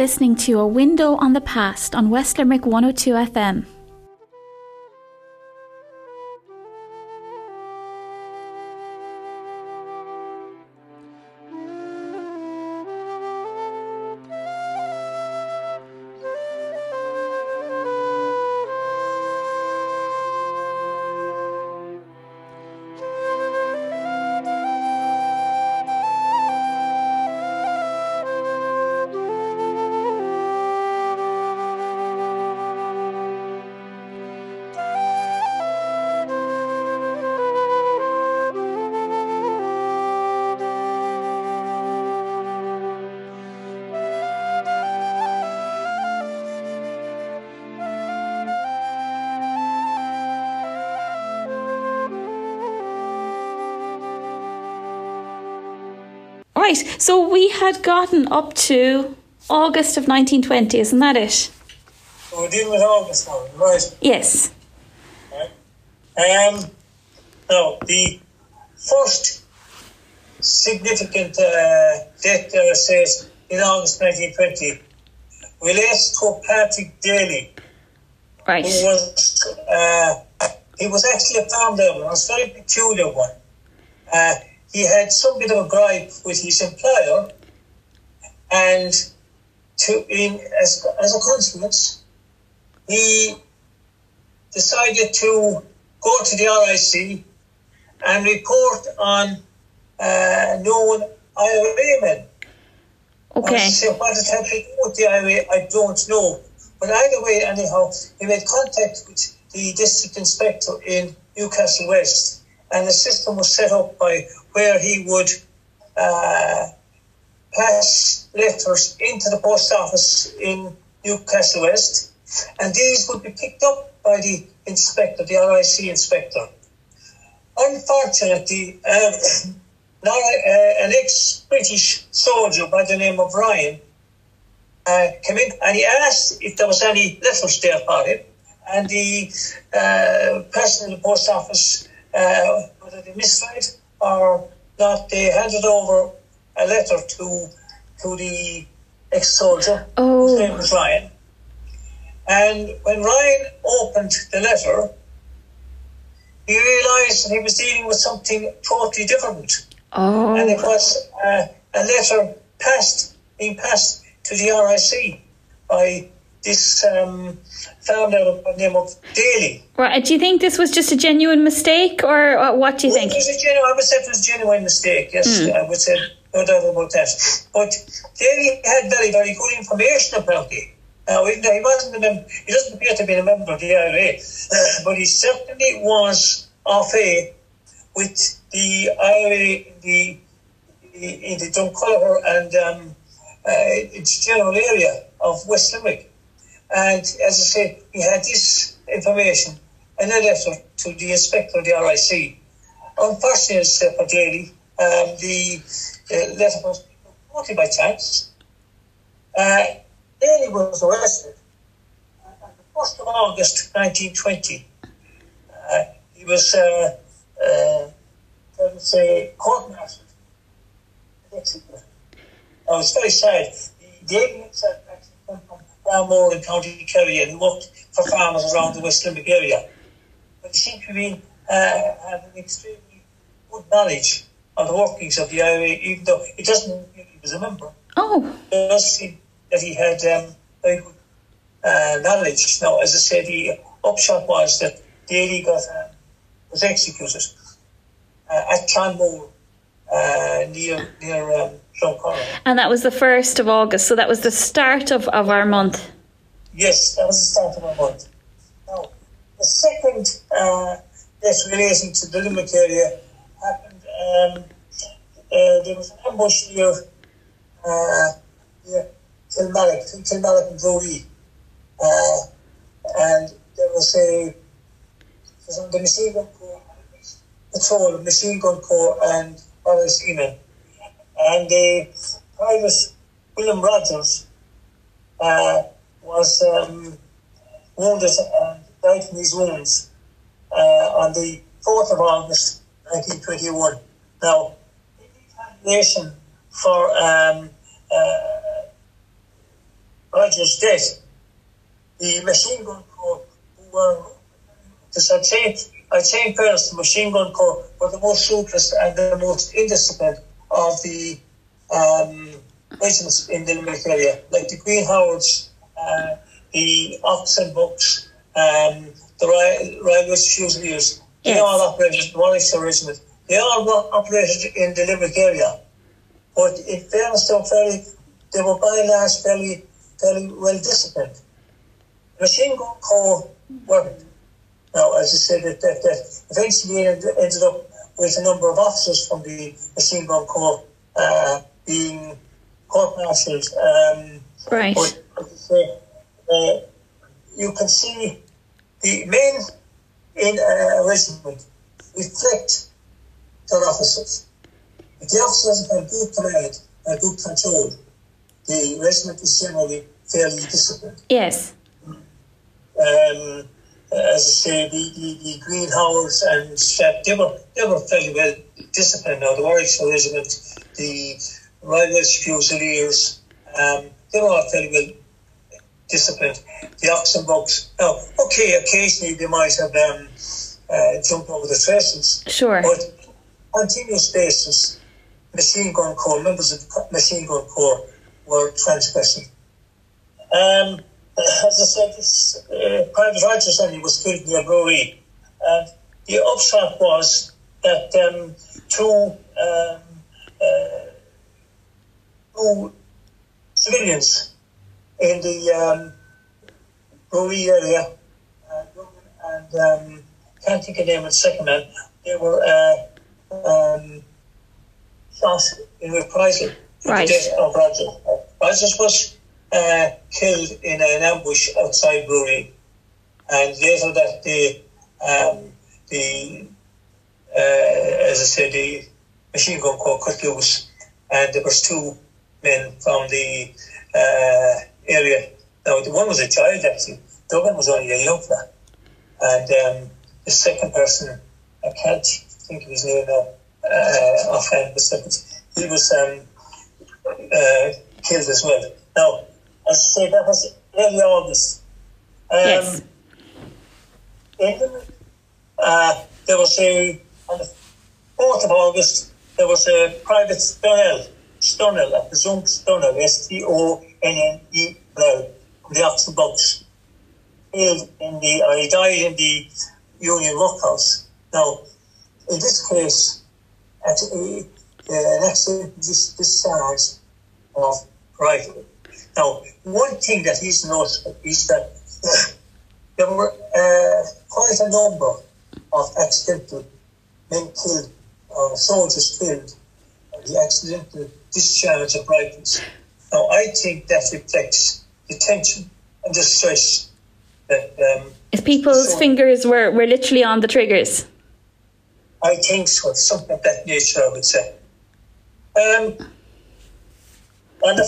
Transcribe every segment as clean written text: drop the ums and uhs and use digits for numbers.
listening to A Window on the Past on West Limerick 102 FM. Right, so we had gotten up to August of 1920, isn't that it? We're dealing with August now, right? Yes. Right. Now, the first significant death there says in August 1920 relates to Patrick Daly. Right. Who was, he was actually a farm labourer, a very peculiar one. He had some bit of a gripe with his employer, and as a consequence, he decided to go to the RIC and report on known IRA men. Okay. So what it had to do with the IRA, I don't know. But either way, anyhow, he made contact with the district inspector in Newcastle West, and the system was set up by where he would pass letters into the post office in Newcastle West, and these would be picked up by the inspector, the RIC inspector. Unfortunately, an ex-British soldier by the name of Ryan came in and he asked if there was any letters there for him, and the person in the post office, whether they misread or not, they handed over a letter to the ex-soldier, whose name was Ryan. And when Ryan opened the letter, he realised that he was dealing with something totally different. Oh. And it was a letter being passed to the RIC by this founder by the name of Daly. Right. Do you think this was just a genuine mistake, or what do you think? I would say it was a genuine mistake, yes. I would say no doubt about that. But Daly had very, very good information about it. Now, even though he wasn't a member, he doesn't appear to be a member of the IRA, but he certainly was au fait with the IRA in the Drumculliver and its general area of West Limerick. And as I say, he had this information in a letter to the inspector of the RIC. Unfortunately, for Daly, the letter was totally by chance. Daly was arrested on the 1st of August 1920. He was, court-martialed and executed. Now, it's very sad. Daly himself actually came from Balmore in County Kerry and worked for farmers around the West Limerick area. But he seemed to be having extremely good knowledge of the workings of the IRA, even though it doesn't mean he was a member. Oh. It does seem that he had very good knowledge. Now, as I said, the upshot was that Daly was executed at Clonmore, near Drumculliver. And that was the 1st of August, so that was the start of our month. Yes, that was the start of our month. Now, the second death relating to the Limerick area happened, there was an ambush near Kilmallock and Brody. And there was on the machine gun corps, patrol, machine gun corps and RIC-men. And Private William Rogers was wounded and died from his wounds on the 4th of August 1921. Now, in retaliation for Roger's death, the Machine Gun Corps, who were, I'd say in fairness, the Machine Gun Corps were the most ruthless and the most indisciplined of the regiments in the Limerick area, like the Green Howards, the Oxen Bucks, the Royal Welsh Fusiliers. They all operated in the Warwickshire Regiment. They all operated in the Limerick area. But in fairness, they were by and large fairly well disciplined. The Machine Gun Corps weren't. Now, as I said, that eventually ended up with a number of officers from the Machine Gun Corps being court-martialed. Right. But as I say, you can see the men in a regiment reflect their officers. If the officers have good command and good control, the regiment is generally fairly disciplined. Yes. As I say, the Green Howards and Shep, they were fairly well disciplined. Now, the Warwickshire Regiment, the Royal Welsh Fusiliers, they were all fairly well disciplined. The Oxen Bucks, now, okay, occasionally they might have jumped over the traces. Sure. But on continuous basis, Machine Gun Corps, members of the Machine Gun Corps were transgressing. As I said, Private Rogers Andy was killed near Brewery, and the upshot was that two civilians in the Brewery area, and can't think of the name of the second man, they were shot in reprisal for the death of Rogers. Rogers was killed in an ambush outside Brewery, and later that day, as I said, the Machine Gun Corps cut loose, and there was two men from the area. Now, the one was a child, actually. The other one was only a young fella. And the second person, I can't think of his name now offhand, but he was killed as well. Now, as I say, that was early August. Yes. There was on the 4th of August, there was a Private Stunnell, I presume Stunnell, Stonne, from the Oxen Bucks, he died in the Union Workhouse. Now, in this case, an accident discharge of rifle. Now, one thing that is notable is that there were quite a number of accidental men killed, or soldiers killed, by the accidental discharge of rifles. Now, I think that reflects the tension and the stress that... if people's fingers were literally on the triggers. I think so, something of that nature, I would say. On the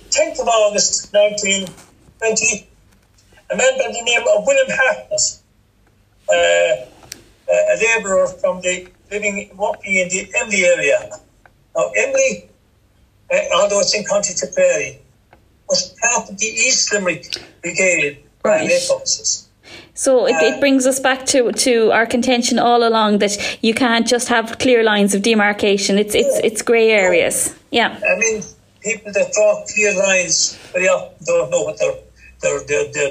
10th of August 1920, a man by the name of William Hartnett, a labourer from working in the Emly area. Now, Emly, although it's in County Tipperary, was part of the East Limerick Brigade forces. So it brings us back to our contention all along that you can't just have clear lines of demarcation. It's grey areas. Yeah. I mean, people that draw clear lines very often don't know what they're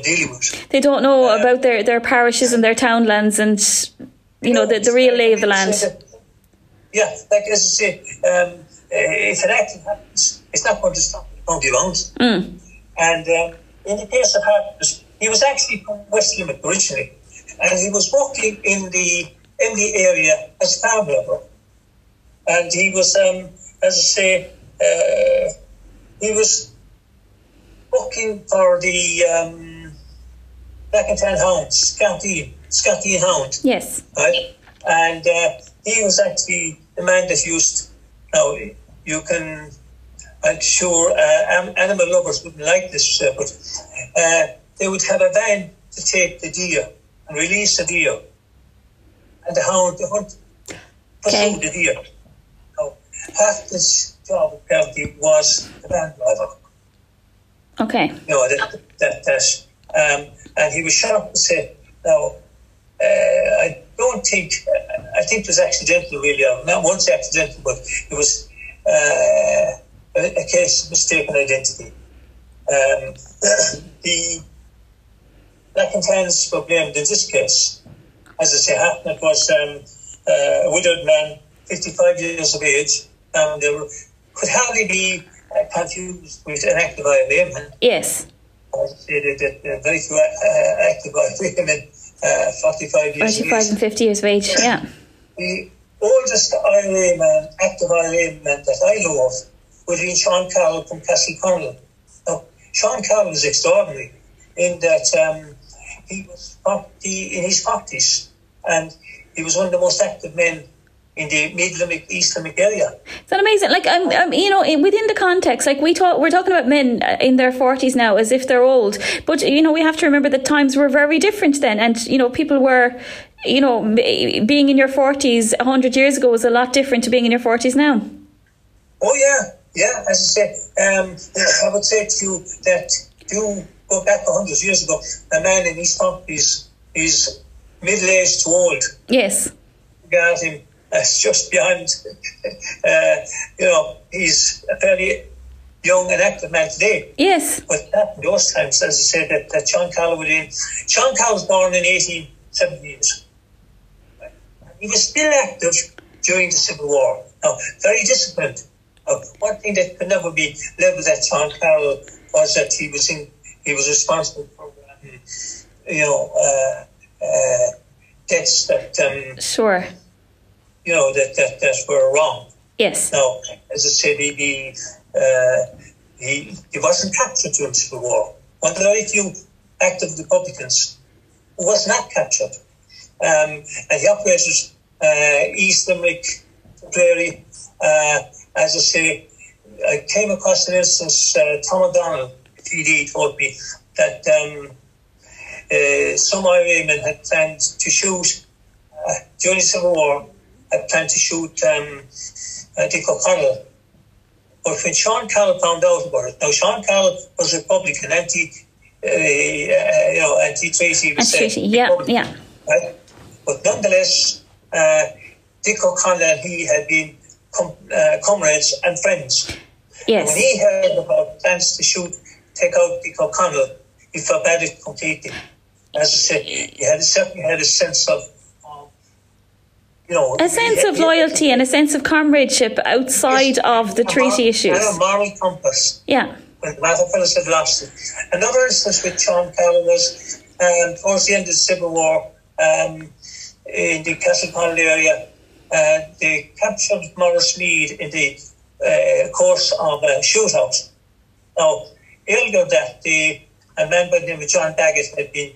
dealing with. They don't know about their parishes and their townlands and the real lay of the land. Yeah, like as I say, if an accident happens, it's not going to stop the county rounds. And in the case of Hartnett, he was actually from West Limerick originally, and he was working in the area as a farm labourer. And he was, as I say, he was working for the Black and Tan Hounds, Scotty Hound. Yes. Right? And he was actually the man that used, now you can, I'm sure animal lovers wouldn't like this, but they would have a van to take the deer and release the deer. And the hunt pursued the deer. Now, half this job apparently was the van driver. Okay. And he was sharp to say, now, I think it was accidental, really. Not once accidental, but it was a case of mistaken identity. The Black and Tans were blamed in this case. As I say, Hartnett was a widowed man, 55 years of age. There could hardly be confused with an active IRA. Yes. I would say that very few active IRA men, 45 years 45 and 50 years of age, yeah. The oldest IRA man, active IRA man that I know of would be Sean Carroll from Castleconnell. Now, Sean Carroll was extraordinary in that he was in his 40s, and he was one of the most active men in the Mid-Limerick, East Limerick area. Is that amazing? Like, within the context, like we're talking about men in their 40s now as if they're old. But, we have to remember that times were very different then. And, people were, being in your 40s 100 years ago was a lot different to being in your 40s now. Oh, yeah. Yeah, as I say, I would say to you that you go back 100 years ago, a man in his 40s is middle-aged to old. Yes. Got him. That's just beyond, he's a fairly young and active man today. Yes. But back in those times, as I said, that Sean Carroll Sean Carroll was born in 1878. He was still active during the Civil War. Now, very disciplined. One thing that could never be levelled at Sean Carroll was that he was responsible for, debts that... Sure. That were wrong. Yes. Now, as I said, he wasn't captured during the Civil War. One of the very few active Republicans who was not captured. And he operated East Limerick, Prairie. As I say, I came across an instance, Tom O'Donnell, TD, told me that some IRA men had planned to shoot during the Civil War. I planned to shoot Dick O'Connell. But when Sean Carroll found out about it, now Sean Carroll was Republican, anti-treaty, yeah. Right? But nonetheless, Dick O'Connell and he had been comrades and friends. Yes. And when he heard about plans to take out Dick O'Connell, he forbade it completely. As I said, he certainly had a sense of a sense of loyalty and a sense of comradeship outside of the treaty issues. And a moral compass. Yeah. When the matter fellows had lost it. Another instance with Sean Carroll was towards the end of the Civil War in the Castleconnell area. They captured Morris Mead in the course of a shootout. Now, earlier that day, a man by the name of John Daggett had been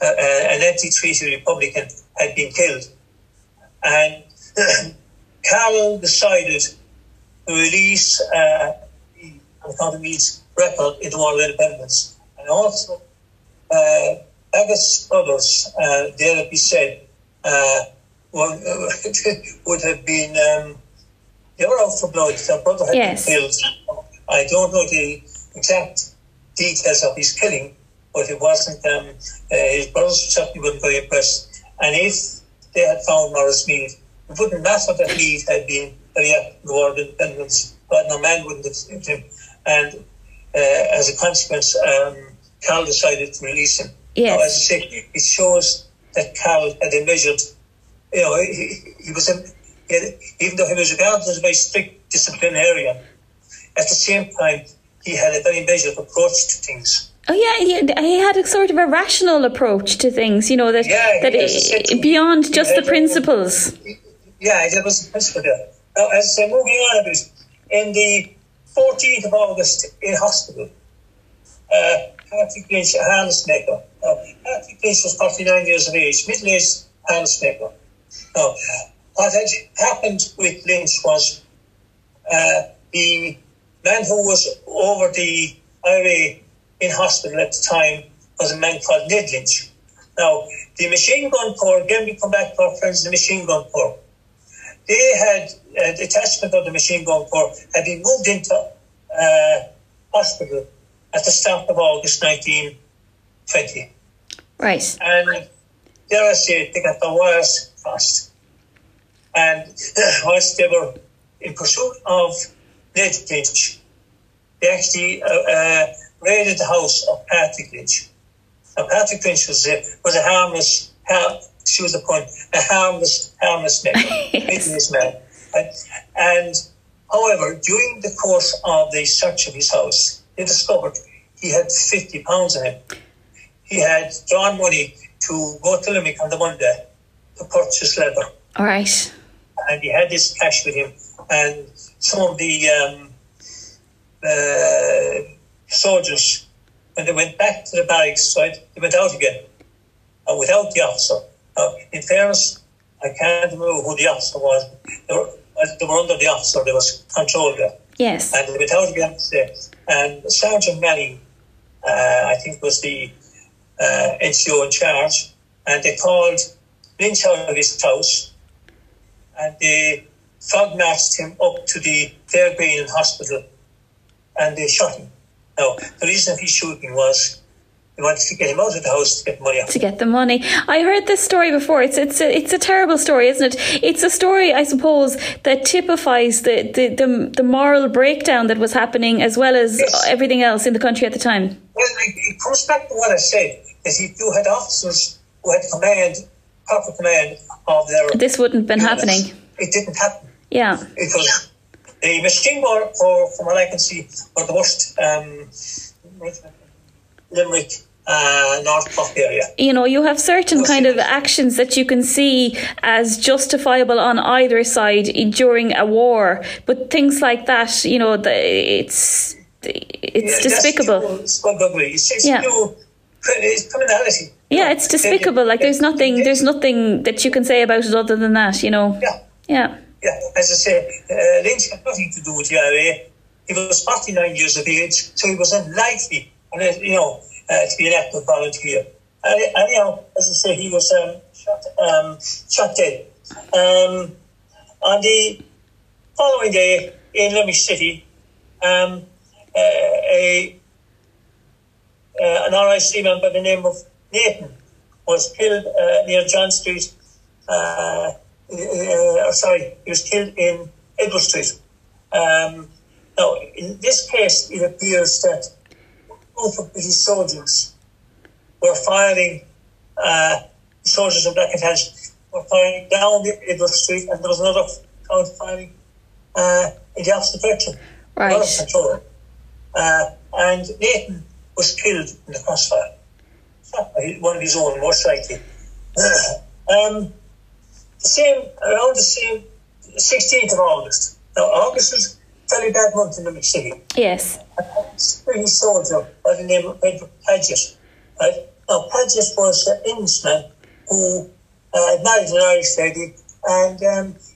an anti-treaty Republican had been killed. And Carroll decided to release the County Meath's record in the War of Independence. And also, Daggett's brothers, dare it be said, would have been, they were out for blood. Their brother had been killed. I don't know the exact details of his killing, but it wasn't, his brothers certainly weren't very impressed. And if they had found Morris Mead, it wouldn't matter that Mead had been very active in the War of Independence, but no man wouldn't have saved him. And as a consequence, Carroll decided to release him. Yes. Now, as I say, it shows that Carroll had a measured, he was, even though he was regarded as a very strict disciplinarian, at the same time, he had a very measured approach to things. Oh yeah, he had a sort of a rational approach to things, beyond just the principles. Yeah, there was a principle there. Now, as I say, moving on a bit, in the 14th of August in hospital, Patrick Lynch, a harness maker. Now, Patrick Lynch was 49 years of age, middle-aged harness maker. Now, what had happened with Lynch was the man who was over the IRA in hospital at the time was a man called Ned Lynch. Now, the Machine Gun Corps, again we come back to our friends in the Machine Gun Corps, they had, a detachment of the Machine Gun Corps had been moved into hospital at the start of August 1920. Right. And dare I say, they got the wires crossed. And whilst they were in pursuit of Ned Lynch, they actually raided the house of Patrick Lynch. Now, Patrick Lynch was a harmless, a harmless man, yes. Man. And however, during the course of the search of his house, they discovered he had £50 on him. He had drawn money to go to Limerick on the Monday to purchase leather. All right. And he had this cash with him. And some of the soldiers, when they went back to the barracks, right, they went out again without the officer. In fairness, I can't remember who the officer was. They were under the officer. There was control there. Yes. And they went out again today. And Sergeant Manning, I think, was the NCO in charge. And they called Lynch out of his house. And they fog marched him up to the Clare Green Hospital. And they shot him. Now, the reason of his shooting was they wanted to get him out of the house to get money out. To get the money. I heard this story before. It's a terrible story, isn't it? It's a story, I suppose, that typifies the moral breakdown that was happening, as well as everything else in the country at the time. Well, it comes back to what I said, is if you had officers who had proper command of their... This wouldn't have been happening. It didn't happen. Yeah. Because the machine gun, from what I can see, were the worst Limerick, North Cork area. You know, you have certain kind of actions that you can see as justifiable on either side during a war, but things like that, you know, it's despicable. It's criminality. Yeah, it's despicable. Like there's nothing that you can say about it other than that, you know. Yeah. As I say, Lynch had nothing to do with the IRA. He was 49 years of age, so he was unlikely, to be an active volunteer. Anyhow, as I say, he was shot dead. On the following day in Limerick City, an RIC man by the name of Nathan was killed near John Street. He was killed in Edward Street. Now, in this case, it appears that a group of British soldiers were firing, soldiers of Black and Tans were firing down the Edward Street, and there was another crowd firing in the opposite direction. Right. Out of control. And Nathan was killed in the crossfire. Shot by one of his own, most likely. Around the same 16th of August. Now, August was a very bad month in Limerick City. Yes. A British soldier by the name of Edward Paget. Right? Now, Paget was an Englishman who married an Irish lady, and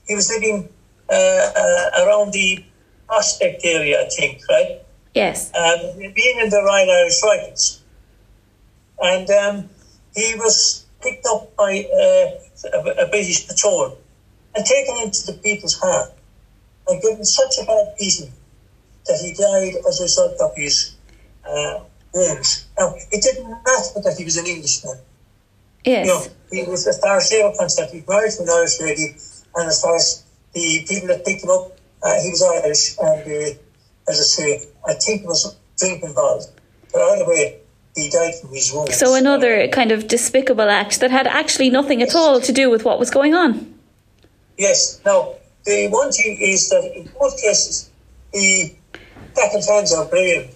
he was living around the Prospect area, I think, right? Yes. Being in the Royal Irish Rifles. And he was picked up by a British patrol and taken into the People's Heart and given such a bad beating that he died as a result of his wounds. Now, it didn't matter that he was an Englishman. Yes. You know, he was, as far as they were concerned, he married to an Irish lady, and as far as the people that picked him up, he was Irish, and as I say, I think there was drink involved. But either way, he died from his wounds. So another kind of despicable act that had actually nothing at all to do with what was going on. Yes. Now, the one thing is that in both cases, the Black and Tans are blamed.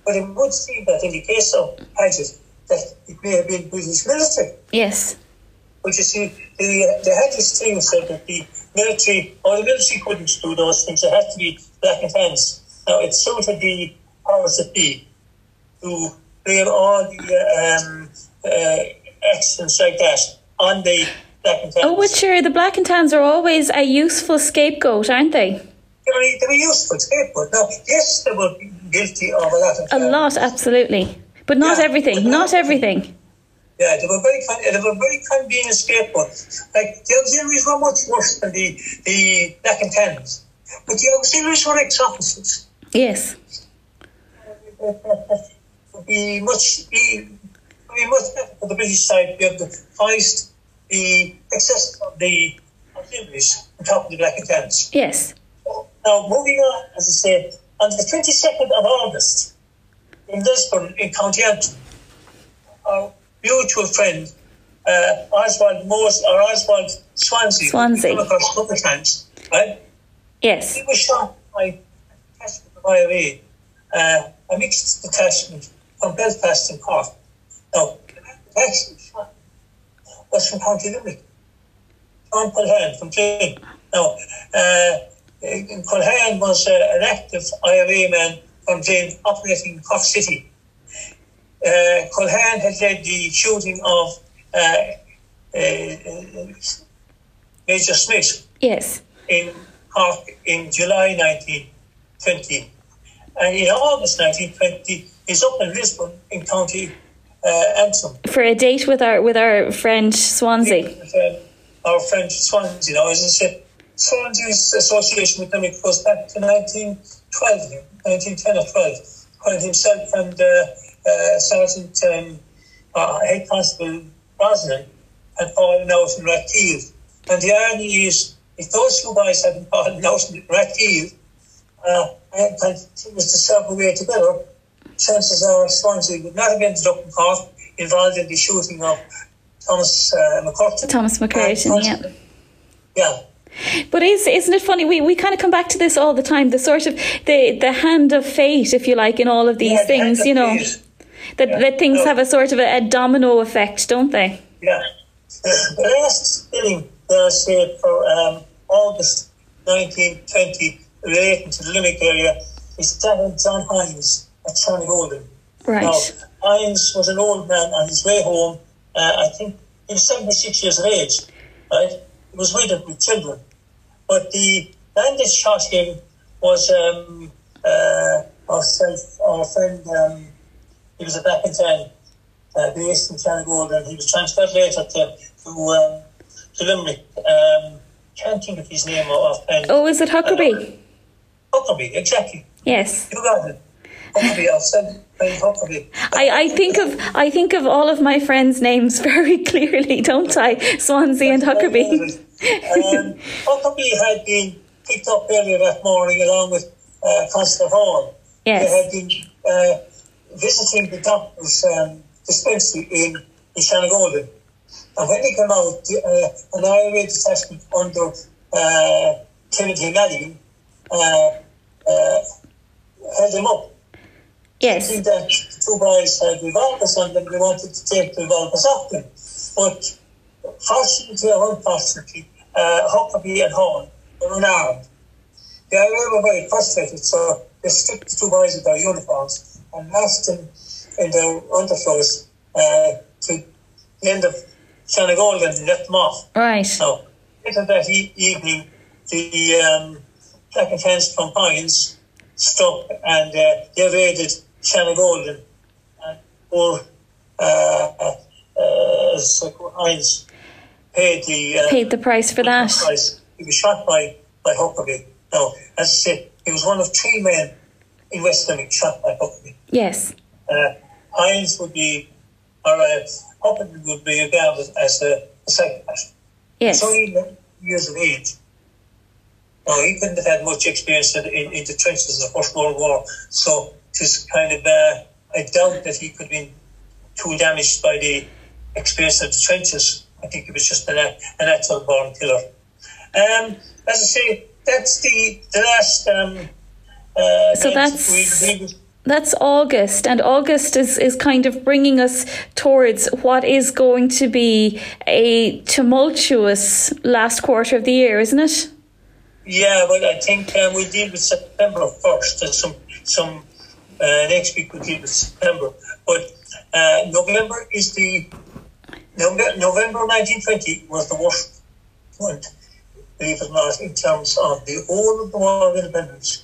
But it would seem that in the case of Paget, that it may have been British military. Yes. But you see, they had this thing said that the military couldn't do those things. It had to be Black and Tans. Now, it suited the powers that be to blame all the accidents like that on the Black and Tans. Oh, but sure, the Black and Tans are always a useful scapegoat, aren't they? They were useful scapegoat. Now, yes, they were guilty of a lot of... A lot, absolutely. But not everything, not everything. Yeah, they were very convenient scapegoats. Like, the auxiliaries were much worse than the Black and Tans. But the auxiliaries were ex-officers. Yes. would be much better for the British side to be able to hoist the excess of the auxiliaries on top of the Black and Tans. Yes. Now, moving on, as I said, on the 22nd of August, in Lisbon, in County Antrim, our mutual friend, Oswald Swansea. Come across a couple of times, right? Yes. He was shot by a detachment of IRA, a mixed detachment from Belfast and Cork. Now, the actual shot was from County Limerick. John Culhane from Trim. Now, Culhane was an active IRA man from Trim operating in Cork City. Culhane had led the shooting of Major Smith. Yes. In Cork in July 1920. And in August 1920, he's up in Lisbon in County Antrim. For a date with our friend Swansea. Our friend Swansea. Now, as I said, Swansea's association with them goes back to 1910 or 12, when himself and Sergeant Head Constable Brosnan had fallen out in Rathkeel. And the irony is, if those two boys hadn't fallen out in Rathkeel and continued to serve away together, chances are Swansea would not have ended up in Cork involved in the shooting of Thomas McCurtain. Thomas McCurtain, yeah. Yeah. But isn't it funny? We kind of come back to this all the time. The sort of the hand of fate, if you like, in all of these things. You know, that things have a sort of a domino effect, don't they? Yeah. The last spilling say for August 1920 relating to the Limerick area is that of John Hines at Shannygolden. Right. Now, Hines was an old man on his way home. I think he was 76 years of age. Right. He was widowed with children. But the man that shot him was our friend, he was a Black and Tan, based in Shannygolden. He was transferred later to Limerick. Can't think of his name offhand. Oh, is it Huckerby? Huckerby, exactly. Yes. You got it. Huckerby, I've said Huckerby. I think of all of my friends' names very clearly, don't I? Swansea and Huckerby. Huckerby had been picked up earlier that morning along with Constable Hall. Yes. They had been visiting the doctor's dispensary in Shannygolden. And when they came out, an IRA detachment under Timothy Madigan held him up. Yes. Thinking that the two boys had revolvers on them, they wanted to take the revolvers off them. But fortunately or unfortunately, Huckerby and Hall were unarmed. The IRA were very frustrated, so they stripped the two boys of their uniforms and asked them in their underclothes to the end of Shannygolden and let them off. Right. Now, later that evening, the Black and Tans from Hines struck and they raided Shannygolden. And poor Hines paid the price for that. Price. He was shot by Huckerby. Now, as I said, he was one of three men in West Limerick shot by Huckerby. Yes. Hines would be, or Huckerby would be regarded as a psychopath. Yes. He's only 11 years of age. Now, he couldn't have had much experience in the trenches of the First World War, so it's kind of, I doubt that he could have been too damaged by the experience of the trenches. I think he was just an natural born killer. As I say, that's the last. So that's August, and August is kind of bringing us towards what is going to be a tumultuous last quarter of the year, isn't it? Yeah, well, I think we'll deal with September first. There's some next week we'll deal with September, but November 1920 was the worst one, believe it or not, in terms of the whole of the War of Independence,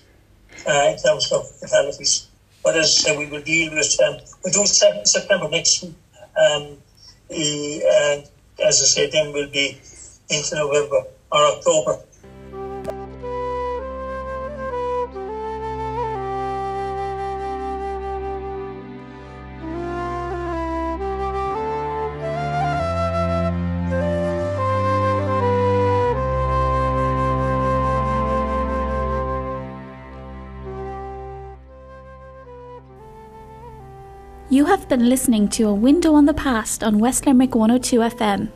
in terms of fatalities. But as I said, we will deal with we'll do September next week, and as I said, then we'll be into November or October. You have been listening to A Window on the Past on West Limerick 102 FM.